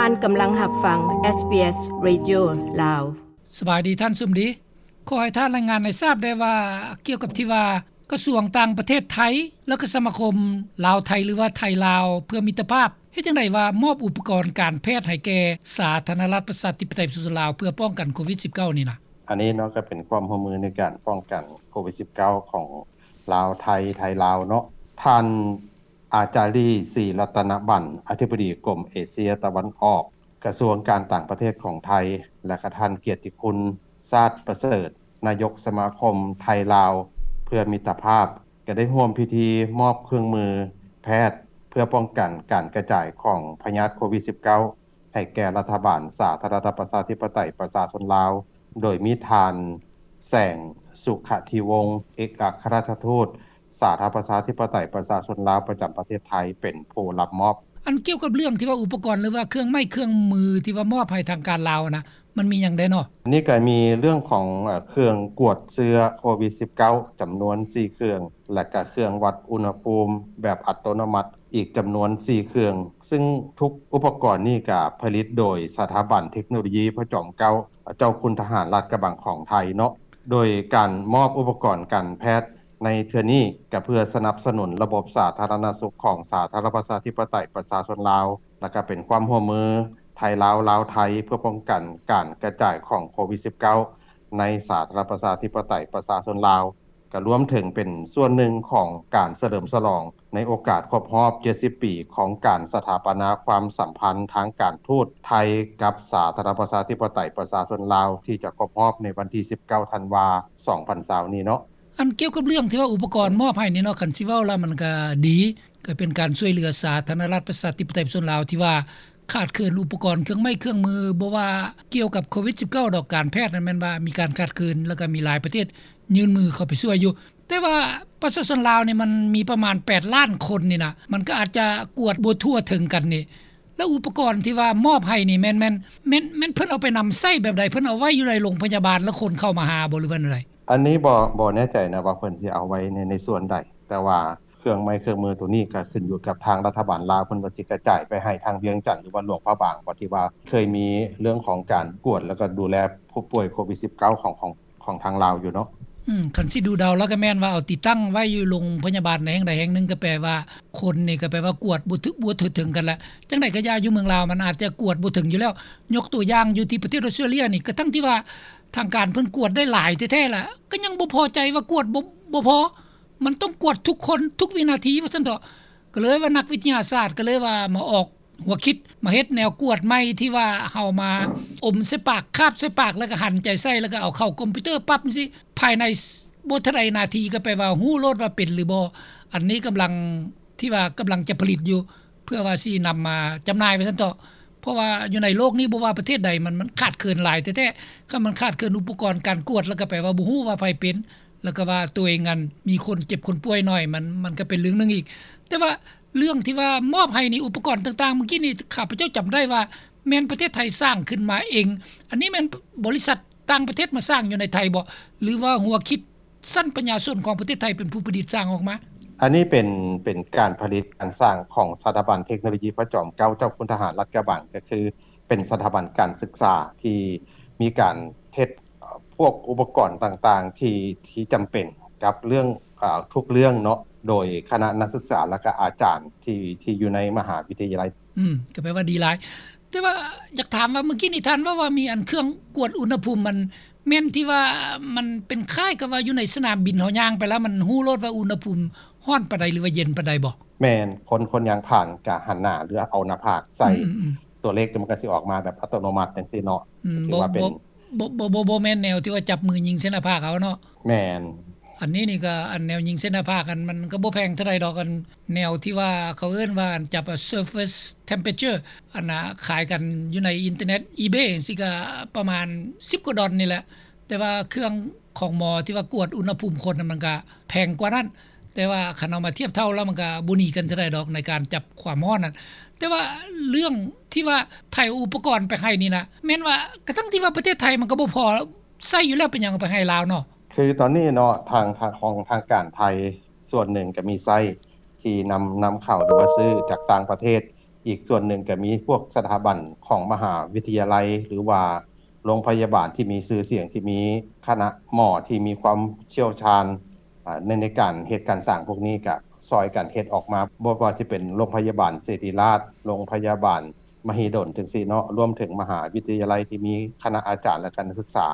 ທ່ານກຳລັງຮັບຟັງ ເອສບີເອສ Radio ລາວ. ສະບາຍດີທ່ານສຸມດີ. ຂໍໃຫ້ທ່ານລາຍງານໃຫ້ຊາບໄດ້ວ່າ ກ່ຽວກັບທີ່ວ່າກະຊວງຕ່າງປະເທດໄທ ແລະ ກະສະມາຄົມລາວໄທ ຫຼືວ່າໄທລາວເພື່ອມິດຕະພາບ ເຮັດຈັ່ງໃດວ່າມອບອຸປະກອນການແພດໃຫ້ແກ່ສາທາລະນະລັດປະຊາທິປະໄຕປະຊາຊົນລາວ ເພື່ອປ້ອງກັນໂຄວິດສິບເກົ້ານີ້ນະ? ອັນນີ້ເນາະ ກໍເປັນຄວາມຮ່ວມມືໃນການປ້ອງກັນໂຄວິດສິບເກົ້າຂອງລາວໄທ ໄທລາວເນາະ. ທ່ານ ອາຈາລີ ສີລັດຕະນະບັນ ອະທິບໍດີກົມເອເຊຍຕາເວັນອອກ ກະຊວງການຕ່າງປະເທດຂອງໄທ ແລະ ກະທ່ານກຽດຕິຄຸນ ຊາດປະເສີດ ນາຍົກສະມາຄົມໄທລາວເພື່ອມິດຕະພາບ ກະໄດ້ຮ່ວມພິທີມອບເຄື່ອງມືແພດ ເພື່ອປ້ອງກັນການກະຈາຍຂອງພະຍາດໂຄວິດສິບເກົ້າ ໃຫ້ແກ່ລັດຖະບານສາທາລະນະລັດປະຊາທິປະໄຕປະຊາຊົນລາວ ໂດຍມີທ່ານ ແສງ ສຸຂະທິວົງ ເອກອັກຄະລັດຖະທູດ ສາທາລະນະລັດປະຊາທິປະໄຕປະຊາຊົນລາວປະຈຳປະເທດໄທ ເປັນຜູ້ຮັບມອບ. ອັນກ່ຽວກັບເລື່ອງທີ່ວ່າອຸປະກອນ ຫຼືວ່າເຄື່ອງໄມ້ເຄື່ອງມືທີ່ວ່າມອບໃຫ້ທາງການລາວນະ ມັນມີຫຍັງແດ່ເນາະ? ອັນນີ້ກໍມີເລື່ອງຂອງ ເອີ ເຄື່ອງກວດເຊື້ອໂຄວິດສິບເກົ້າ ຈຳນວນສີ່ເຄື່ອງ ແລະ ກະເຄື່ອງວັດອຸນຫະພູມແບບອັດຕະໂນມັດ ອີກຈຳນວນສີ່ເຄື່ອງ, ຊຶ່ງທຸກອຸປະກອນນີ້ກະຜະລິດໂດຍສະຖາບັນເທັກໂນໂລຢີພະຈອມເກົ້າ ເຈົ້າຄຸນທະຫານລາດກະບັງຂອງໄທເນາະ. ໂດຍການມອບອຸປະກອນການແພດໃນເທື່ອນີ້ ກະເພື່ອສະໜັບສະໜູນລະບົບສາທາລະນະສຸກຂອງສາທາລະນະລັດປະຊາທິປະໄຕປະຊາຊົນລາວ ແລະ ກະເປັນຄວາມຮ່ວມມືໄທລາວ ລາວໄທ ເພື່ອປ້ອງກັນການກະຈາຍຂອງໂຄວິດສິບເກົ້າ ໃນສາທາລະນະລັດປະຊາທິປະໄຕປະຊາຊົນລາວ. ກະລວມເຖິງເປັນສ່ວນໜຶ່ງຂອງການສະເຫຼີມສະຫຼອງໃນໂອກາດຄົບຮອບເຈັດສິບປີຂອງການສະຖາປະນາຄວາມສຳພັນທາງການທູດໄທກັບສາທາລະນະລັດປະຊາທິປະໄຕປະຊາຊົນລາວ ທີ່ຈະຄົບຮອບໃນວັນທີສິບເກົ້າ ທັນວາ ສອງພັນຊາວນີ້ເນາະ. ອັນກ່ຽວກັບເລື່ອງທີ່ວ່າອຸປະກອນມອບໃຫ້ນີ້ເນາະ ຄັນຊິເວົ້າລະມັນກະດີ ກະເປັນການຊ່ວຍເຫຼືອສາທາລະນະລັດປະຊາທິປະໄຕປະຊາຊົນລາວທີ່ວ່າ ຂາດເຂີນອຸປະກອນເຄື່ອງໄມ້ເຄື່ອງມື ບໍ່ວ່າກ່ຽວກັບໂຄວິດສິບເກົ້າດອກ ການແພດນັ້ນແມ່ນວ່າມີການຂາດເຂີນ ແລ້ວກໍມີຫຼາຍປະເທດຍື່ນມືເຂົ້າໄປຊ່ວຍຢູ່ ແຕ່ວ່າປະຊາຊົນລາວນີ້ມັນມີປະມານແປດລ້ານຄົນນີ້ນະ ມັນກໍອາດຈະກວດບໍ່ທົ່ວເຖິງກັນນີ້ ແລ້ວອຸປະກອນທີ່ວ່າມອບໃຫ້ນີ້ແມ່ນ ແມ່ນ ແມ່ນ ແມ່ນເພິ່ນເອົາໄປນຳໃຊ້ແບບໃດ? ເພິ່ນເອົາໄວ້ຢູ່ໃນໂລງພະຍາບານ ແລ້ວຄົນເຂົ້າມາຫາບໍ່ ຫຼືວ່າແນວໃດ? ອັນນີ້ບໍ່ ບໍ່ແນ່ໃຈນະວ່າເພິ່ນຊິເອົາໄວ້ໃນ ໃນສ່ວນໃດ ແຕ່ວ່າ ເຄື່ອງໄມ້ເຄື່ອງມືໂຕນີ້ກໍຂຶ້ນຢູ່ກັບທາງລັດຖະບານລາວ ເພິ່ນວ່າຊິກະຈາຍໄປໃຫ້ທາງວຽງຈັນ ຫຼືວ່າຫຼວງພະບາງບໍ ທີ່ວ່າເຄີຍມີເລື່ອງຂອງການກວດ ແລ້ວກໍດູແລຜູ້ປ່ວຍໂຄວິດສິບເກົ້າ ຂອງ ຂອງ ຂອງທາງລາວຢູ່ເນາະ. ອືມ ຄັນຊິດູເດົາແລ້ວກໍແມ່ນວ່າເອົາຕິດຕັ້ງໄວ້ຢູ່ໂລງພະຍາບານໃນແຫ່ງໃດແຫ່ງໜຶ່ງ ກໍແປວ່າຄົນນີ້ກໍແປວ່າກວດບໍ່ຖືກ ບໍ່ທົ່ວເຖິງກັນລະ. ຈັ່ງໃດກໍຢ່າ ຢູ່ເມືອງລາວມັນອາດຈະກວດບໍ່ເຖິງຢູ່ແລ້ວ ຍົກຕົວຢ່າງຢູ່ທີ່ປະເທດອອສເຕຣເລຍນີ້ ກະທັງທີ່ວ່າທາງການເພິ່ນກວດໄດ້ຫຼາຍແທ້ໆລະ ກໍຍັງບໍ່ພໍໃຈວ່າກວດບໍ່ ບໍ່ພໍ ມັນຕ້ອງກວດທຸກຄົນທຸກວິນາທີວ່າຊັ້ນເຖາະ. ກໍເລີຍວ່ານັກວິທະຍາສາດກໍເລີຍວ່າມາອອກຫົວຄິດ ມາເຮັດແນວກວດໃໝ່ທີ່ວ່າເຮົາມາອົມໃສ່ປາກ ຄາບໃສ່ປາກ ແລ້ວກໍຫັນໃຈໃສ່ ແລ້ວກໍເອົາເຂົ້າຄອມພິວເຕີປັບຈັ່ງຊີ້ ພາຍໃນບໍ່ເທົ່າໃດນາທີກໍແປວ່າຮູ້ໂລດວ່າເປັນຫຼືບໍ່. ອັນນີ້ກຳລັງ ທີ່ວ່າກຳລັງຈະຜະລິດຢູ່ ເພື່ອວ່າຊິນຳມາຈຳໜ່າຍວ່າຊັ້ນເຖາະ. ເພາະວ່າຢູ່ໃນໂລກນີ້ບໍ່ວ່າປະເທດໃດ ມັນ ມັນຂາດເຂີນຫຼາຍແທ້ໆ. ຄັນມັນຂາດເຂີນອຸປະກອນການກວດ ແລ້ວກໍແປວ່າບໍ່ຮູ້ວ່າໃຜເປັນ ແລ້ວກໍວ່າຕົວເອງນັ້ນມີຄົນເຈັບຄົນປ່ວຍໜ້ອຍ ມັນ ມັນກໍເປັນເລື່ອງໜຶ່ງອີກ. ແຕ່ວ່າເລື່ອງທີ່ວ່າມອບໃຫ້ນີ້ ອຸປະກອນຕ່າງໆ ມື້ກີ້ນີ້ຂ້າພະເຈົ້າຈຳໄດ້ວ່າແມ່ນປະເທດໄທສ້າງຂຶ້ນມາເອງ. ອັນນີ້ແມ່ນບໍລິສັດຕ່າງປະເທດມາສ້າງຢູ່ໃນໄທບໍ ຫຼືວ່າຫົວຄິດ ຊັ້ນປັນຍາຊົນຂອງປະເທດໄທເປັນຜູ້ປະດິດສ້າງອອກມາ? ອັນນີ້ເປັນ ເປັນການຜະລິດການສ້າງຂອງສະຖາບັນເທັກໂນໂລຢີພະຈອມເກົ້າ ເຈົ້າຄຸນທະຫານລາດກະບັງ ກໍຄືເປັນສະຖາບັນການສຶກສາທີ່ມີການເຮັດ ເອີ່ ພວກອຸປະກອນຕ່າງໆ ທີ່ ທີ່ຈຳເປັນກັບເລື່ອງ ເອີ່ ທຸກເລື່ອງເນາະ ໂດຍຄະນະນັກສຶກສາ ແລ້ວກະອາຈານທີ່ ທີ່ຢູ່ໃນມະຫາວິທະຍາໄລ. ອືມ ກໍແປວ່າດີຫຼາຍ. ແຕ່ວ່າຢາກຖາມວ່າ ມື້ກີ້ນີ້ທ່ານເວົ້າວ່າມີອັນເຄື່ອງກວດອຸນຫະພູມ ມັນແມ່ນທີ່ວ່າມັນເປັນຄ້າຍກັບວ່າຢູ່ໃນສະໜາມບິນ ເຮົາຍ່າງໄປແລ້ວມັນຮູ້ໂລດວ່າອຸນຫະພູມຮ້ອນປານໃດ ຫຼືວ່າເຢັນປານໃດບໍ? ແມ່ນ ຄົນ ຄົນຍ່າງຜ່ານກະຫັນໜ້າ ຫຼືເອົາໜ້າຜາກໃສ່ ອືມໆໆ ຕົວເລກມັນກະຊິອອກມາແບບອັດຕະໂນມັດຈັ່ງຊີ້ເນາະ. ອືມ ຖືວ່າເປັນ ບໍ່ ບໍ່ ບໍ່ ບໍ່ ບໍ່ແມ່ນແນວທີ່ວ່າຈັບມືຍິງໃສ່ໜ້າຜາກເອົາເນາະ. ແມ່ນ. ອັນນີ້ນີ້ກໍ ອັນແນວຍິງເສັ້ນໜ້າຜາກ ອັນມັນກໍບໍ່ແພງເທົ່າໃດດອກ ອັນແນວທີ່ວ່າເຂົາເອີ້ນວ່າ ອັນຈັບ surface temperature ອັນນ່າຂາຍກັນຢູ່ໃນອິນເຕີເນັດ ອີເບ ຈັ່ງຊີ້ ກໍປະມານສິບກວ່າດອນນີ້ແຫຼະ. ແຕ່ວ່າເຄື່ອງຂອງໝໍທີ່ວ່າກວດອຸນຫະພູມຄົນ ມັນກໍແພງກວ່ານັ້ນ. ແຕ່ວ່າຄັນເອົາມາທຽບເທົ່າແລ້ວ ມັນກໍບໍ່ໜີກັນເທົ່າໃດດອກ ໃນການຈັບຄວາມຮ້ອນນັ້ນ. ແຕ່ວ່າເລື່ອງທີ່ວ່າໄທເອົາອຸປະກອນໄປໃຫ້ນີ້ນະ ແມ່ນວ່າ ກະທັງທີ່ວ່າປະເທດໄທມັນກໍບໍ່ພໍໃຊ້ຢູ່ແລ້ວ ເປັນຫຍັງເອົາໄປໃຫ້ລາວເນາະ? ຄືຕອນນີ້ເນາະ ທາງ ທາງ ຂອງທາງການໄທສ່ວນໜຶ່ງກໍມີໃຊ້ທີ່ນຳ ນຳເຂົ້າ ຫຼືວ່າຊື້ຈາກຕ່າງປະເທດ ອີກສ່ວນໜຶ່ງກໍມີພວກສະຖາບັນຂອງມະຫາວິທະຍາໄລ ຫຼືວ່າໂຮງພະຍາບານທີ່ມີຊື່ສຽງ ທີ່ມີຄະນະໝໍທີ່ມີຄວາມຊ່ຽວຊານ ອ່າ ໃນ ໃນການເຮັດການສ້າງພວກນີ້ ກະຊ່ອຍກັນເຮັດອອກມາ ບໍ່ວ່າຊິເປັນໂຮງພະຍາບານສິລິຣາດ, ໂຮງພະຍາບານມະຫິດົນ ຈັ່ງຊີ້ເນາະ, ລວມເຖິງມະຫາວິທະຍາໄລທີ່ມີຄະນະອາຈານ ແລະ ກະນັກສຶກສາ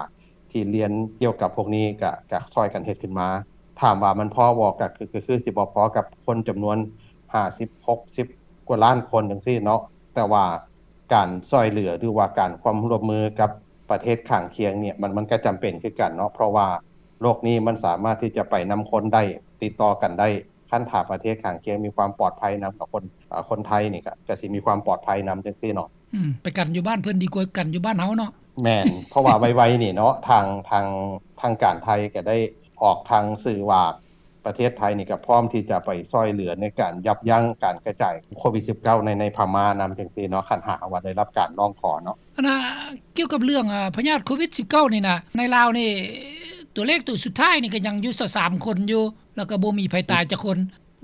ທີ່ຮຽນກ່ຽວກັບພວກນີ້ ກະ ກະຊ່ອຍກັນເຮັດຂຶ້ນມາ. ຖາມວ່າມັນພໍບໍ່? ກະຄື ກະຄືຊິບໍ່ພໍກັບຄົນຈຳນວນຫ້າສິບ ຫົກສິບກວ່າລ້ານຄົນ ຈັ່ງຊີ້ເນາະ, ແຕ່ວ່າການຊ່ອຍເຫຼືອ ຫຼືວ່າການຄວາມຮ່ວມມືກັບປະເທດຂ້າງຄຽງນີ້ ມັນ ມັນກະຈຳເປັນຄືກັນເນາະ, ເພາະວ່າໂລກນີ້ມັນສາມາດທີ່ຈະໄປນຳຄົນໄດ້ ຕິດຕໍ່ກັນໄດ້. ຄັນຖ້າປະເທດຂ້າງຄຽງມີຄວາມປອດໄພນຳກັບຄົນ ເອີ ຄົນໄທນີ້ກະ ກະຊິມີຄວາມປອດໄພນຳ ຈັ່ງຊີ້ເນາະ. ອືມ ໄປກັນຢູ່ບ້ານເພິ່ນດີກວ່າກັນຢູ່ບ້ານເຮົາເນາະ. ແມ່ນ, ເພາະວ່າໄວໆນີ້ເນາະ ທາງ ທາງ ທາງການໄທກະໄດ້ອອກທາງສື່ວ່າ ປະເທດໄທນີ້ກະພ້ອມທີ່ຈະໄປຊ່ອຍເຫຼືອໃນການຢັບຢັ້ງການກະຈາຍໂຄວິດສິບເກົ້າ ໃນ ໃນພະມ້ານຳ ຈັ່ງຊີ້ເນາະ, ຄັນຫາກວ່າໄດ້ຮັບການຮ້ອງຂໍເນາະ. ອັນນ່າ ກ່ຽວກັບເລື່ອງ ອາ ພະຍາດໂຄວິດສິບເກົ້ານີ້ນະ ໃນລາວນີ້ ຕົວເລກຕົວສຸດທ້າຍນີ້ກະຍັງຢູ່ຊາວສາມຄົນຢູ່ ແລ້ວກະບໍ່ມີໃຜຕາຍຈັກຄົນ.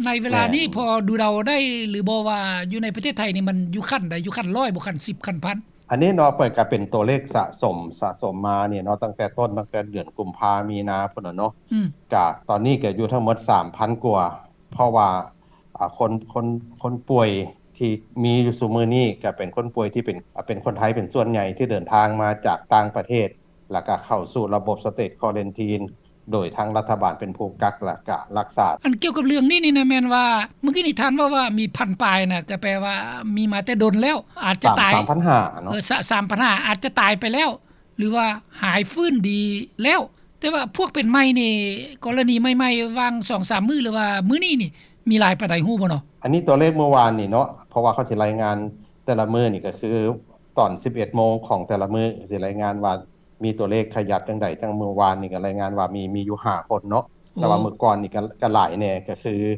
ໃນເວລານີ້ ແມ່ນ ພໍດູເດົາໄດ້ຫຼືບໍ່ວ່າ ຢູ່ໃນປະເທດໄທນີ້ມັນຢູ່ຂັ້ນໃດ? ຢູ່ຂັ້ນຮ້ອຍບໍ່? ຂັ້ນສິບ? ຂັ້ນພັນ? ອັນນີ້ເນາະ ເພິ່ນກະເປັນຕົວເລກສະສົມ ສະສົມມານີ້ເນາະ ຕັ້ງແຕ່ຕົ້ນ ຕັ້ງແຕ່ເດືອນກຸມພາ ມີນາພຸ້ນນະເນາະ. ອືມ ກະຕອນນີ້ກະຢູ່ທັງໝົດສາມພັນກວ່າ ເພາະວ່າ ອາ ຄົນ ຄົນ ຄົນປ່ວຍທີ່ມີຢູ່ຊຸມື້ນີ້ກະເປັນຄົນປ່ວຍທີ່ເປັນ ອາ ເປັນຄົນໄທເປັນສ່ວນໃຫຍ່ ທີ່ເດີນທາງມາຈາກຕ່າງປະເທດ ແລ້ວກະເຂົ້າສູ່ລະບົບ State Quarantine ໂດຍທາງລັດຖະບານເປັນຜູ້ກັກ ແລ້ວກະຮັກສາ. ອັນກ່ຽວກັບເລື່ອງນີ້ນີ້ນະ ແມ່ນວ່າ ເມື່ອກີ້ນີ້ທ່ານເວົ້າວ່າມີພັນປາຍນະ ກະແປວ່າມີມາແຕ່ດົນແລ້ວ ອາດຈະຕາຍ ສາມພັນຫ້າເນາະ. ເອີ ສາມພັນຫ້າ ອາດຈະຕາຍໄປແລ້ວ ຫຼືວ່າຫາຍຟື້ນດີແລ້ວ. ແຕ່ວ່າພວກເປັນໃໝ່ນີ້ ກໍລະນີໃໝ່ໆ ຫວ່າງສອງສາມມື້ ຫຼືວ່າມື້ນີ້ນີ້ ມີຫຼາຍປານໃດ ຮູ້ບໍ່ເນາະ? ອັນນີ້ຕົວເລກມື້ວານນີ້ເນາະ ເພາະວ່າເຂົາຊິລາຍງານແຕ່ລະມື້ນີ້ ກະຄືຕອນສິບເອັດໂມງຂອງແຕ່ລະມື້ ຊິລາຍງານວ່າ ມີຕົວເລກຂະຫຍັບຈັ່ງໃດ. ຈັ່ງມື້ວານນີ້ກະລາຍງານວ່າມີ ມີຢູ່ຫ້າຄົນເນາະ. ໂອ້ ແຕ່ວ່າມື້ກ່ອນນີ້ກະ ກະຫຼາຍແດ່ ກະຄື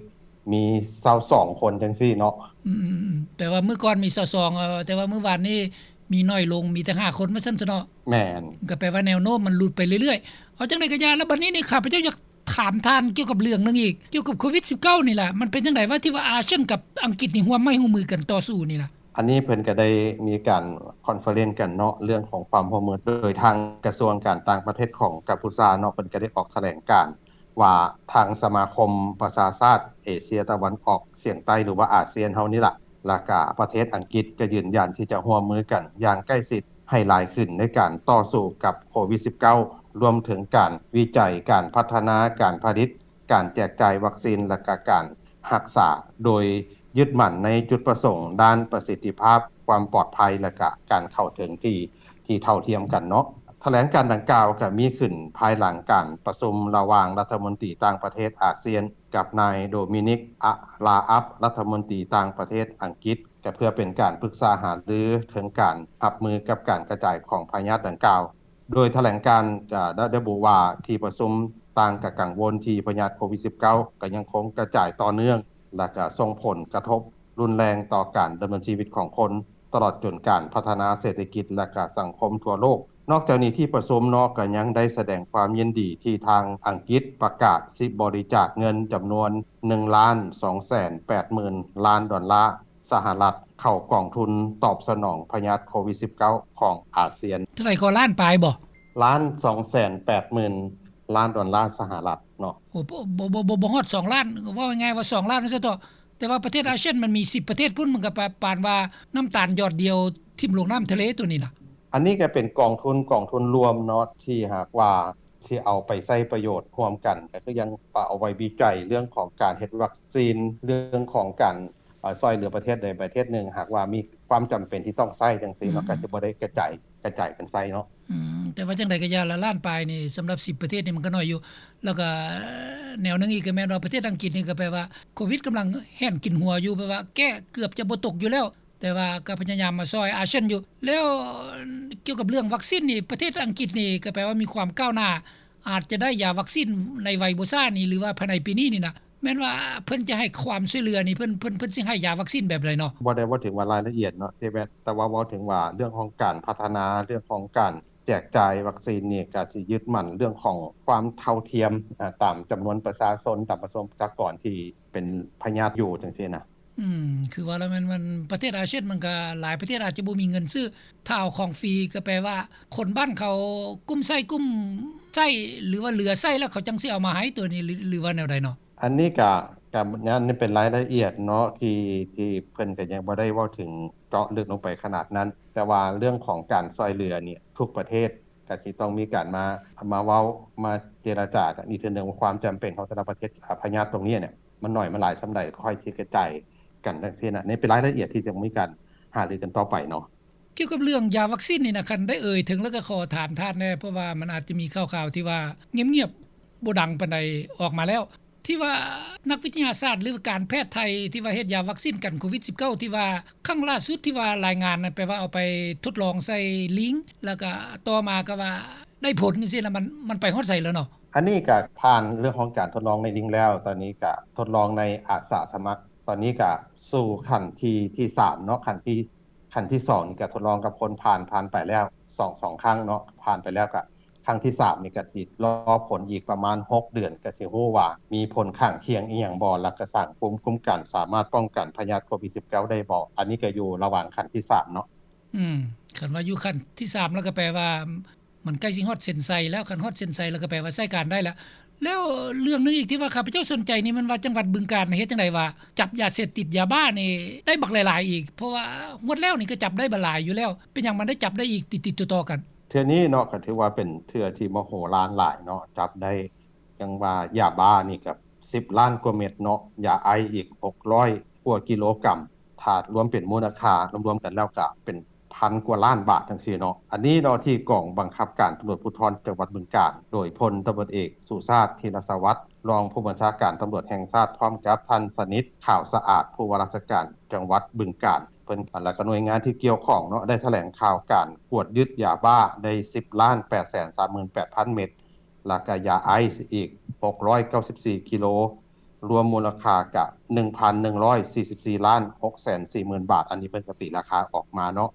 ມີຊາວສອງຄົນຈັ່ງຊີ້ເນາະ. ອືມໆໆ ແປວ່າມື້ກ່ອນມີຊາວສອງ ເອີ ແຕ່ວ່າມື້ວານນີ້ມີໜ້ອຍລົງ ມີແຕ່ຫ້າຄົນວ່າຊັ້ນເຖາະເນາະ. ແມ່ນ. ກະແປວ່າແນວໂນ້ມມັນຫຼຸດໄປເລື້ອຍໆ. ເອົາຈັ່ງໃດກະຢ່າ ລະບາດນີ້ນີ້ ຂ້າພະເຈົ້າຢາກຖາມທ່ານກ່ຽວກັບເລື່ອງໜຶ່ງອີກ ກ່ຽວກັບໂຄວິດສິບເກົ້ານີ້ລະ ມັນເປັນຈັ່ງໃດວະ ທີ່ວ່າອາຊຽນກັບອັງກິດນີ້ຮ່ວມໄມ້ຮ່ວມມືກັນຕໍ່ສູ້ນີ້ນະ? ອັນນີ້ເພິ່ນກະໄດ້ມີການຄອນເຟີເຣັນກັນເນາະ ເລື່ອງຂອງຄວາມຮ່ວມມື ໂດຍທາງກະຊວງການຕ່າງປະເທດຂອງກຳປູຊາເນາະ ເພິ່ນກະໄດ້ອອກຖະແຫຼງການວ່າ ທາງສະມາຄົມປະຊາຊາດເອເຊຍຕາເວັນອອກສຽງໃຕ້ ຫຼືວ່າອາຊຽນເຮົານີ້ລະ ແລ້ວກະປະເທດອັງກິດກະຢືນຢັນທີ່ຈະຮ່ວມມືກັນຢ່າງໃກ້ຊິດໃຫ້ຫຼາຍຂຶ້ນ ໃນການຕໍ່ສູ້ກັບໂຄວິດສິບເກົ້າ ລວມເຖິງການວິໄຈ, ການພັດທະນາ, ການຜະລິດ, ການແຈກຈ່າຍວັກຊີນ ແລະກະການຮັກສາ ໂດຍຍຶດໝັ້ນໃນຈຸດປະສົງດ້ານປະສິດທິພາບ, ຄວາມປອດໄພ ແລະກະການເຂົ້າເຖິງທີ່ ທີ່ເທົ່າທຽມກັນເນາະ. ຖະແຫຼງການດັ່ງກ່າວກະມີຂຶ້ນພາຍຫຼັງການປະຊຸມລະຫວ່າງລັດຖະມົນຕີຕ່າງປະເທດອາຊຽນ ກັບນາຍໂດມິນິກ ອາລາອັບ ລັດຖະມົນຕີຕ່າງປະເທດອັງກິດ ກະເພື່ອເປັນການປຶກສາຫາລືເຖິງການຮັບມືກັບການກະຈາຍຂອງພະຍາດດັ່ງກ່າວ. ໂດຍຖະແຫຼງການກະໄດ້ລະບຸວ່າ ທີ່ປະຊຸມຕ່າງກະກັງວົນທີ່ພະຍາດໂຄວິດສິບເກົ້າ ກະຍັງຄົງກະຈາຍຕໍ່ເນື່ອງ ແລະກະສົ່ງຜົນກະທົບ ຮຸນແຮງຕໍ່ການດຳເນີນຊີວິດຂອງຄົນ ຕະຫຼອດຈົນການພັດທະນາເສດຖະກິດ ແລະກະສັງຄົມທົ່ວໂລກ. ນອກຈາກນີ້ ທີ່ປະຊຸມເນາະ ກະຍັງໄດ້ສະແດງຄວາມຍິນດີທີ່ທາງອັງກິດປະກາດຊິບໍລິຈາກເງິນຈຳນວນໜຶ່ງລ້ານສອງແສນແປດໝື່ນລ້ານດອນລາສະຫະລັດ ເຂົ້າກອງທຶນຕອບສະໜອງພະຍາດໂຄວິດສິບເກົ້າຂອງອາຊຽນ. ເທົ່າໃດກໍ ລ້ານປາຍບໍ່? ລ້ານສອງແສນແປດໝື່ນລ້ານດອນລາສະຫະລັດເນາະ. ໂອ້ ບໍ່ ບໍ່ ບໍ່ ບໍ່ຮອດສອງລ້ານ ເວົ້າງ່າຍໆວ່າສອງລ້ານວ່າຊັ້ນເຖາະ. ແຕ່ວ່າປະເທດອາຊຽນມັນມີສິບປະເທດພຸ້ນ ມັນກະປະ ປານວ່ານ້ຳຕານຢອດດຽວຖິ້ມລົງນ້ຳທະເລໂຕນີ້ນະ. ອັນນີ້ກະເປັນກອງທຶນ ກອງທຶນລວມເນາະ ທີ່ຫາກວ່າຊິເອົາໄປໃຊ້ປະໂຫຍດຮ່ວມກັນ ກະຄືຍັງປະ ເອົາໄວ້ວິໄຈເລື່ອງຂອງການເຮັດວັກຊີນ ເລື່ອງຂອງການ ເອີ ຊ່ອຍເຫຼືອປະເທດໃດປະເທດໜຶ່ງ ຫາກວ່າມີຄວາມຈຳເປັນທີ່ຕ້ອງໃຊ້ຈັ່ງຊີ້ເນາະ ອືມ ກະຊິບໍ່ໄດ້ກະຈາຍ ກະຈາຍກັນໃຊ້ເນາະ. ອືມ ແຕ່ວ່າຈັ່ງໃດກະຢ່າລະ ລ້ານປາຍນີ້ສຳລັບສິບປະເທດນີ້ມັນກະໜ້ອຍຢູ່. ແລ້ວກະແນວໜຶ່ງອີກກະແມ່ນວ່າປະເທດອັງກິດນີ້ກະແປວ່າໂຄວິດກຳລັງແຮນກິນຫົວຢູ່ ແປວ່າແກ້ເກືອບຈະບໍ່ຕົກຢູ່ແລ້ວ ແຕ່ວ່າກະພະຍາຍາມມາຊ່ອຍອາຊຽນຢູ່. ແລ້ວກ່ຽວກັບເລື່ອງວັກຊີນນີ້ ປະເທດອັງກິດນີ້ກະແປວ່າມີຄວາມກ້າວໜ້າ ອາດຈະໄດ້ຢາວັກຊີນໃນໄວບໍ່ຊ້ານີ້ ຫຼືວ່າພາຍໃນປີນີ້ນີ້ນະ ແມ່ນວ່າເພິ່ນຈະໃຫ້ຄວາມຊ່ວຍເຫຼືອນີ້ ເພິ່ນ ເພິ່ນ ເພິ່ນຊິໃຫ້ຢາວັກຊີນແບບໃດເນາະ? ບໍ່ໄດ້ເວົ້າເຖິງວ່າລາຍລະອຽດເນາະ ແຕ່ ແຕ່ວ່າເວົ້າເຖິງວ່າເລື່ອງຂອງການພັດທະນາ ເລື່ອງຂອງການແຈກຈ່າຍວັກຊີນນີ້ ກະຊິຍຶດໝັ້ນເລື່ອງຂອງຄວາມເທົ່າທຽມ ອາ ຕາມຈຳນວນປະຊາຊົນ ຕາມປະຊາກອນທີ່ເປັນພະຍາດຢູ່ຈັ່ງຊີ້ນະ. ອືມ ຄືວ່າແລ້ວແມ່ນ ມັນ ປະເທດອາຊຽນມັນກໍຫຼາຍປະເທດອາດຈະບໍ່ມີເງິນຊື້ ຖ້າເອົາຂອງຟຣີກໍແປວ່າ ຄົນບ້ານເຂົາກຸ້ມໃຊ້ກຸ້ມໃຊ້ ຫຼືວ່າເຫຼືອໃຊ້ແລ້ວເຂົາຈັ່ງຊິເອົາມາໃຫ້ ຕົວນີ້ ຫຼື ຫຼືວ່າແນວໃດເນາະ? ອັນນີ້ກະ ກະ ອັນນີ້ເປັນລາຍລະອຽດເນາະ ທີ່ ທີ່ເພິ່ນກະຍັງບໍ່ໄດ້ເວົ້າເຖິງເຈາະເລິກລົງໄປຂະໜາດນັ້ນ ແຕ່ວ່າເລື່ອງຂອງການຊ່ວຍເຫຼືອນີ້ ທຸກປະເທດກະຊິຕ້ອງມີການມາ ມາເວົ້າ ມາເຈລະຈາກັນອີກເທື່ອໜຶ່ງວ່າ ຄວາມຈຳເປັນຂອງແຕ່ລະປະເທດ ອາ ພະຍາດຕົງນີ້ເນ່ຍ ມັນໜ້ອຍມັນຫຼາຍສ່ຳໃດ ຄ່ອຍຊິກະຈາຍກັນຈັ່ງຊີ້ນະ ນີ້ເປັນລາຍລະອຽດທີ່ຈະມີການຫາລືກັນຕໍ່ໄປເນາະ. ກ່ຽວກັບເລື່ອງຢາວັກຊີນນີ້ນະ ຄັນໄດ້ເອີ່ຍເຖິງແລ້ວກໍຂໍຖາມທ່ານແດ່ ເພາະວ່າມັນອາດຈະມີຂ່າວໆທີ່ວ່າງຽບໆ ບໍ່ດັງປານໃດອອກມາແລ້ວ ທີ່ວ່ານັກວິທະຍາສາດ ຫຼືການແພດໄທ ທີ່ວ່າເຮັດຢາວັກຊີນກັນໂຄວິດສິບເກົ້າ ທີ່ວ່າຄັ້ງລ່າສຸດທີ່ວ່າລາຍງານນັ້ນ ແປວ່າເອົາໄປທົດລອງໃສ່ລີງ ແລ້ວກໍຕໍ່ມາກໍວ່າໄດ້ຜົນຈັ່ງຊີ້ນະ ມັນ ມັນໄປຮອດໃສແລ້ວເນາະ? ອັນນີ້ກໍຜ່ານເລື່ອງຂອງການທົດລອງໃນລີງແລ້ວ ຕອນນີ້ກໍທົດລອງໃນອາສາສະໝັກ ຕອນນີ້ກໍສູ່ຂັ້ນທີ ທີສາມເນາະ ຂັ້ນທີ ຂັ້ນທີສອງນີ້ກໍທົດລອງກັບຄົນຜ່ານ ຜ່ານໄປແລ້ວສອງ ສອງຄັ້ງເນາະ ຜ່ານໄປແລ້ວ ກໍຄັ້ງທີສາມນີ້ກໍຊິລໍຜົນອີກປະມານຫົກເດືອນ ກໍຊິຮູ້ວ່າມີຜົນຂ້າງຄຽງອີ່ຫຍັງບໍ່ ແລ້ວກໍສ້າງພູມຄຸ້ມກັນ ສາມາດປ້ອງກັນພະຍາດໂຄວິດສິບເກົ້າໄດ້ບໍ່ ອັນນີ້ກໍຢູ່ລະຫວ່າງຂັ້ນທີສາມເນາະ. ອືມ ຄັນວ່າຢູ່ຂັ້ນທີສາມແລ້ວກໍແປວ່າ ມັນໃກ້ຊິຮອດເສັ້ນໄຊແລ້ວ ຄັນຮອດເສັ້ນໄຊແລ້ວກໍແປວ່າໃຊ້ການໄດ້ແລ້ວ. ແລ້ວເລື່ອງໜຶ່ງອີກທີ່ວ່າຂ້າພະເຈົ້າສົນໃຈນີ້ ແມ່ນວ່າຈັງຫວັດບຶງການເຮັດຈັ່ງໃດວ່າ ຈັບຢາເສບຕິດຢາບ້ານີ້ໄດ້ບັກຫຼາຍໆອີກ ເພາະວ່າງວດແລ້ວນີ້ກໍຈັບໄດ້ບັກຫຼາຍຢູ່ແລ້ວ ເປັນຫຍັງມັນໄດ້ຈັບໄດ້ອີກຕິດໆຕໍ່ໆກັນ? ເທື່ອນີ້ເນາະ ກໍຖືວ່າເປັນເທື່ອທີ່ມະໂຫລານຫຼາຍເນາະ ຈັບໄດ້ ຈັ່ງວ່າຢາບ້ານີ້ກໍສິບລ້ານກວ່າເມັດເນາະ ຢາໄອສ໌ອີກຫົກຮ້ອຍກວ່າກິໂລກຣາມ ຖ້າລວມເປັນມູນລະຄ່າລວມໆກັນແລ້ວກໍເປັນ ພັນກວ່າລ້ານບາດຈັ່ງຊີ້ເນາະ. ອັນນີ້ເນາະ ທີ່ກອງບັງຄັບການຕຳຫຼວດພູທອນຈັງຫວັດບຶງການ ໂດຍພົນຕຳຫຼວດເອກ ສຸຊາດ ທີລະສະຫວັດ ຮອງຜູ້ບັນຊາການຕຳຫຼວດແຫ່ງຊາດ ພ້ອມກັບທ່ານ ສະໜິດ ຂາວສະອາດ ຜູ້ວ່າລາຊະການຈັງຫວັດບຶງການ ເພິ່ນ ແລ້ວກໍໜ່ວຍງານທີ່ກ່ຽວຂ້ອງເນາະ ໄດ້ຖະແຫຼງຂ່າວການກວດຍຶດຢາບ້າໄດ້ສິບລ້ານແປດແສນສາມໝື່ນແປດພັນເມັດ ແລ້ວກໍຢາໄອສ໌ອີກຫົກຮ້ອຍເກົ້າສິບສີ່ກິໂລ ລວມມູນລະຄ່າກະໜຶ່ງພັນໜຶ່ງຮ້ອຍສີ່ສິບສີ່ລ້ານຫົກແສນສີ່ໝື່ນບາດ ອັນນີ້ເພິ່ນກໍຕີລາຄາອອກມາເນາະ.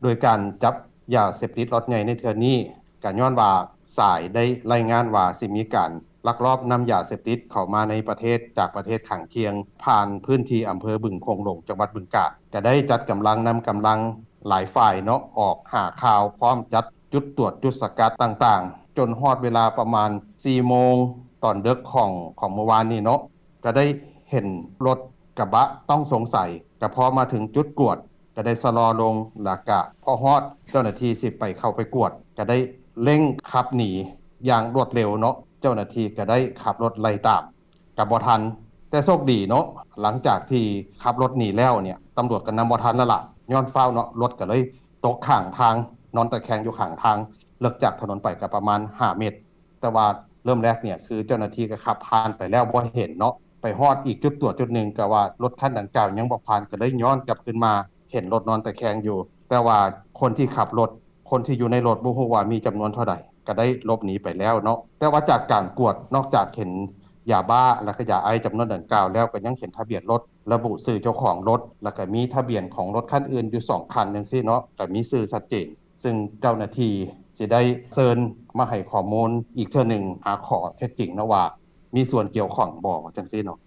ໂດຍການຈັບຢາເສບຕິດລັອດໃຫຍ່ໃນເທື່ອນີ້ ກໍຍ້ອນວ່າສາຍໄດ້ລາຍງານວ່າຊິມີການລັກລອບນຳຢາເສບຕິດເຂົ້າມາໃນປະເທດ ຈາກປະເທດຂ້າງຄຽງ ຜ່ານພື້ນທີ່ອຳເພີບຶງໂຂງຫຼວງ ຈັງຫວັດບຶງການ ກໍໄດ້ຈັດກຳລັງ ນຳກຳລັງຫຼາຍຝ່າຍເນາະ ອອກຫາຂ່າວ ພ້ອມຈັດ ຈຸດຕວດຈຸດສະກັດຕ່າງໆ ຈົນຮອດເວລາປະມານສີ່ໂມງຕອນເດິກຂອງ ຂອງມື້ວານນີ້ເນາະ ກໍໄດ້ເຫັນລົດກະບະຕ້ອງສົງໄສ ກໍພໍມາເຖິງຈຸດກວດ ກໍໄດ້ຊະລໍລົງ ແລ້ວກະພໍຮອດເຈົ້າໜ້າທີ່ຊິໄປ ເຂົ້າໄປກວດ ກໍໄດ້ເລັ່ງຂັບໜີຢ່າງລວດເລັວເນາະ ເຈົ້າໜ້າທີ່ກໍໄດ້ຂັບລົດໄລ່ຕາມ ກໍບໍ່ທັນ ແຕ່ໂຊກດີເນາະ ຫຼັງຈາກທີ່ຂັບລົດໜີແລ້ວເນ່ຍ ຕຳຫຼວດກໍນຳບໍ່ທັນແລ້ວລະ ຍ້ອນຟ້າວເນາະ ລົດກໍເລີຍຕົກຂ້າງທາງ ນອນຕະແຄງຢູ່ຂ້າງທາງ ເລິກຈາກຖະໜົນໄປກໍປະມານຫ້າເມັດ ແຕ່ວ່າເລີ່ມແລກເນ່ຍ ຄືເຈົ້າໜ້າທີ່ກໍຂັບຜ່ານໄປແລ້ວບໍ່ເຫັນເນາະ ໄປຮອດອີກຈຸດຕວດຈຸດໜຶ່ງ ກໍວ່າລົດຄັນດັ່ງກ່າວຍັງບໍ່ຜ່ານ ກໍເລີຍຍ້ອນກັບຄືນມາ ເຫັນລົດນອນຕະແຄງຢູ່ ແຕ່ວ່າຄົນທີ່ຂັບລົດ ຄົນທີ່ຢູ່ໃນລົດບໍ່ຮູ້ວ່າມີຈຳນວນເທົ່າໃດ ກໍໄດ້ຫຼົບໜີໄປແລ້ວເນາະ ແຕ່ວ່າຈາກການກວດ ນອກຈາກເຫັນຢາບ້າ ແລະ ກໍຢາໄອສ໌ຈຳນວນດັ່ງກ່າວແລ້ວ ກໍຍັງເຫັນທະບຽນລົດ ລະບຸຊື່ເຈົ້າຂອງລົດ ແລ້ວກໍມີທະບຽນຂອງລົດຄັນອື່ນຢູ່ສອງຄັນຈັ່ງຊີ້ເນາະ ກໍມີຊື່ຊັດເຈນ ຊຶ່ງເຈົ້າໜ້າທີ່ຊິໄດ້ເຊີນມາໃຫ້ຂໍ້ມູນອີກເທື່ອໜຶ່ງ ຫາຂໍ້ເທັດຈິງເນາະວ່າ ມີສ່ວນກ່ຽວຂ້ອງບໍ່ ຈັ່ງຊີ້ເນາະ.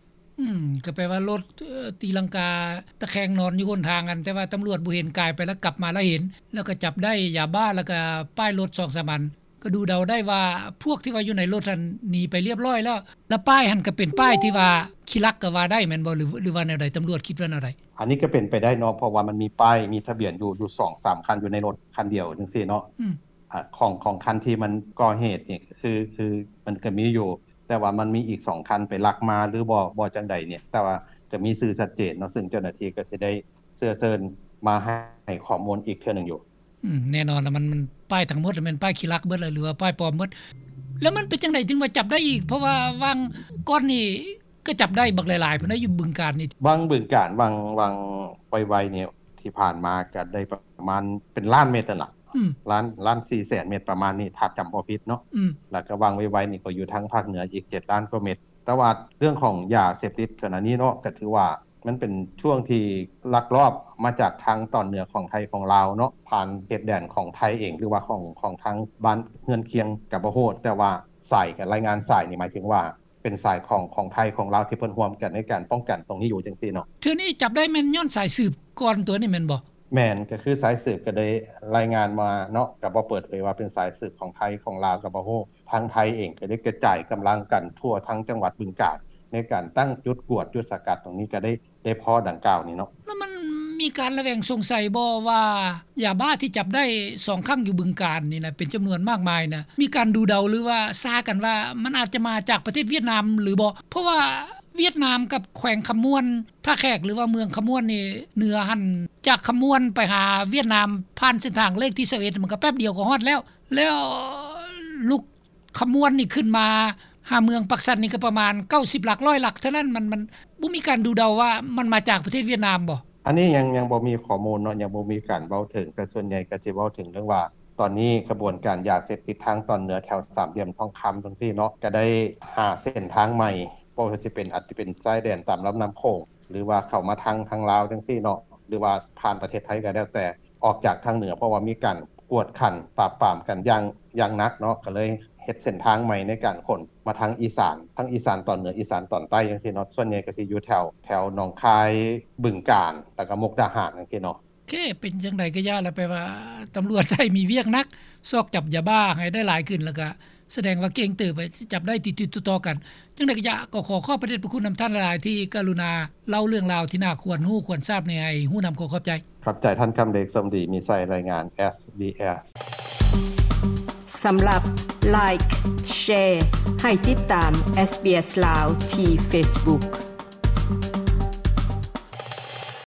ອືມ ກໍແປວ່າລົດ ເອີ ຕີລັງກາຕະແຄງນອນຢູ່ຫົນທາງຫັ້ນ ແຕ່ວ່າຕຳຫຼວດບໍ່ເຫັນ ກາຍໄປແລ້ວກັບມາແລ້ວເຫັນ ແລ້ວກໍຈັບໄດ້ຢາບ້າ ແລ້ວກໍປ້າຍລົດສອງສາມອັນ ກໍດູເດົາໄດ້ວ່າພວກທີ່ວ່າຢູ່ໃນລົດຫັ້ນໜີໄປລຽບລ້ອຍແລ້ວ ແລ້ວປ້າຍຫັ້ນກໍເປັນປ້າຍທີ່ວ່າຂີ້ລັກກໍວ່າໄດ້ແມ່ນບໍ່ ຫຼື ຫຼືວ່າແນວໃດ? ຕຳຫຼວດຄິດວ່າແນວໃດ? ອັນນີ້ກໍເປັນໄປໄດ້ເນາະ ເພາະວ່າມັນມີປ້າຍ ມີທະບຽນຢູ່ ຢູ່ສອງສາມຄັນຢູ່ໃນລົດຄັນດຽວຈັ່ງຊີ້ເນາະ ອືມ ອາ ຂອງ ຂອງຄັນທີ່ມັນກໍ່ເຫດນີ້ ກໍຄື ຄືມັນກໍມີຢູ່ ແຕ່ວ່າມັນມີອີກສອງຄັນໄປລັກມາ ຫຼືບໍ່ ບໍ່ຈັ່ງໃດນີ້ ແຕ່ວ່າກໍມີຊື່ຊັດເຈນເນາະ ຊຶ່ງເຈົ້າໜ້າທີ່ກໍຊິໄດ້ເຊື້ອເຊີນມາໃຫ້ຂໍ້ມູນອີກເທື່ອໜຶ່ງຢູ່. ອືມ ແນ່ນອນລະ ມັນ ມັນປ້າຍທັງໝົດແມ່ນປ້າຍຂີ້ລັກເບິດລະ ຫຼືວ່າປ້າຍປອມເບິດ ແລ້ວມັນເປັນຈັ່ງໃດຈຶ່ງວ່າຈັບໄດ້ອີກ? ເພາະວ່າຫວ່າງກ່ອນນີ້ກໍຈັບໄດ້ບັກຫຼາຍໆພຸ້ນນະ ຢູ່ບຶງການນີ້. ຫວ່າງບຶງການ ຫວ່າງ ຫວ່າງໄວໆນີ້ ທີ່ຜ່ານມາກໍໄດ້ປະມານເປັນລ້ານເມັດຫັ້ນລະ ອືມ ລ້ານ ລ້ານສີ່ແສນເມັດປະມານນີ້ ຖ້າຈຳບໍ່ຜິດເນາະ ອືມ ແລ້ວກໍຫວ່າງໄວໆນີ້ກໍຢູ່ທາງພາກເໜືອອີກເຈັດລ້ານກວ່າເມັດ ແຕ່ວ່າເລື່ອງຂອງຢາເສບຕິດຂະນະນີ້ເນາະ ກໍຖືວ່າ ມັນເປັນຊ່ວງທີ່ລັກລອບມາຈາກທາງຕອນເໜືອຂອງໄທຂອງລາວເນາະ ຜ່ານເຂດແດນຂອງໄທເອງ ຫຼືວ່າຂອງ ຂອງທາງບ້ານເຮືອນຄຽງກໍບໍ່ຮູ້ ແຕ່ວ່າສາຍ ການລາຍງານສາຍນີ້ ໝາຍເຖິງວ່າ ເປັນສາຍຂອງ ຂອງໄທ ຂອງລາວ ທີ່ເພິ່ນຮ່ວມກັນໃນການປ້ອງກັນຕົງນີ້ຢູ່ຈັ່ງຊີ້ເນາະ. ເທື່ອນີ້ຈັບໄດ້ແມ່ນຍ້ອນສາຍສືບກ່ອນຕົວນີ້ແມ່ນບໍ່? ແມ່ນ ກໍຄືສາຍສືບກໍໄດ້ລາຍງານມາເນາະ ກໍບໍ່ເປີດເຜີຍວ່າເປັນສາຍສືບຂອງໄທ ຂອງລາວກໍບໍ່ຮູ້. ທາງໄທເອງກໍໄດ້ກະຈາຍກຳລັງກັນທົ່ວທັງຈັງຫວັດບຶງການ ໃນການຕັ້ງຈຸດກວດ ຈຸດສະກັດຕົງນີ້ ກໍໄດ້ ໄດ້ພໍດັ່ງກ່າວນີ້ເນາະ. ແລ້ວມັນມີການລະແວງສົງໄສບໍ່ວ່າ ຢາບ້າທີ່ຈັບໄດ້ສອງຄັ້ງຢູ່ບຶງການນີ້ນະ ເປັນຈຳນວນມາກມາຍນະ ມີການດູເດົາ ຫຼືວ່າຊາກັນວ່າ ມັນອາດຈະມາຈາກປະເທດຫວຽດນາມຫຼືບໍ່? ເພາະວ່າຫວຽດນາມກັບແຂວງຄຳມ່ວນ ທ່າແຂກ ຫຼືວ່າເມືອງຄຳມ່ວນນີ້ ເໜືອຫັ້ນ ຈາກຄຳມ່ວນໄປຫາຫວຽດນາມ ຜ່ານເສັ້ນທາງເລກທີຊາວເອັດ ມັນກໍແປັບດຽວກໍຮອດແລ້ວ. ແລ້ວລຸກ ຄຳມ່ວນນີ້ຂຶ້ນມາຫາເມືອງປາກຊັນນີ້ກໍປະມານເກົ້າສິບຫຼັກ ຮ້ອຍຫຼັກເທົ່ານັ້ນ. ມັນ ມັນບໍ່ມີການດູເດົາວ່າມັນມາຈາກປະເທດຫວຽດນາມບໍ່? ອັນນີ້ຍັງ ຍັງບໍ່ມີຂໍ້ມູນເນາະ ຍັງບໍ່ມີການເວົ້າເຖິງ, ແຕ່ສ່ວນໃຫຍ່ກໍຊິເວົ້າເຖິງເລື່ອງວ່າ ຕອນນີ້ຂະບວນການຢາເສບຕິດທາງຕອນເໜືອແຖວສາມຫຼ່ຽມທອງຄຳຈັ່ງຊີ້ເນາະ ກໍໄດ້ຫາເສັ້ນທາງໃໝ່ ບໍ່ວ່າຊິເປັນ ອາດຈະເປັນຊາຍແດນຕາມລຳນ້ຳໂຂງ ຫຼືວ່າເຂົ້າມາທາງ ທາງລາວຈັ່ງຊີ້ເນາະ ຫຼືວ່າຜ່ານປະເທດໄທກໍແລ້ວແຕ່ ອອກຈາກທາງເໜືອ ເພາະວ່າມີການກວດຂັນປາບປາມກັນຢ່າງ ຢ່າງໜັກເນາະ ກໍເລີຍເຮັດເສັ້ນທາງໃໝ່ໃນການຂົນມາທາງອີສານ ທາງອີສານຕອນເໜືອ ອີສານຕອນໃຕ້ຈັ່ງຊີ້ເນາະ. ສ່ວນໃຫຍ່ກໍຊິຢູ່ແຖວ ແຖວໜອງຄາຍ ບຶງການ ແລ້ວກໍມຸກດາຫານຈັ່ງຊີ້ເນາະ. ໂອເຄ ເປັນຈັ່ງໃດກໍຢ່າລະ ແປວ່າຕຳຫຼວດໄທມີວຽກໜັກ ຊອກຈັບຢາບ້າໃຫ້ໄດ້ຫຼາຍຂຶ້ນ ແລ້ວກໍ ສະແດງວ່າເກັ່ງເຕີບ ຈັບໄດ້ຕິດໆຕໍ່ໆກັນ. ຈັ່ງໃດກໍຢາກ ກໍຂໍຂອບພະເດດພະຄຸນນຳທ່ານຫຼາຍໆ ທີ່ກະລຸນາເລົ່າເລື່ອງລາວທີ່ໜ້າຄວນຮູ້ຄວນຊາບນີ້ໃຫ້ຮູ້ນຳ. ຂໍຂອບໃຈ. ຂອບໃຈທ່ານຄຳເດດ ສົມດີມີໄຊ ລາຍງານ ເອສບີເອສ. ສຳລັບ Like Share ໃຫ້ຕິດຕາມ ເອສບີເອສ ລາວ ທີ່ Facebook.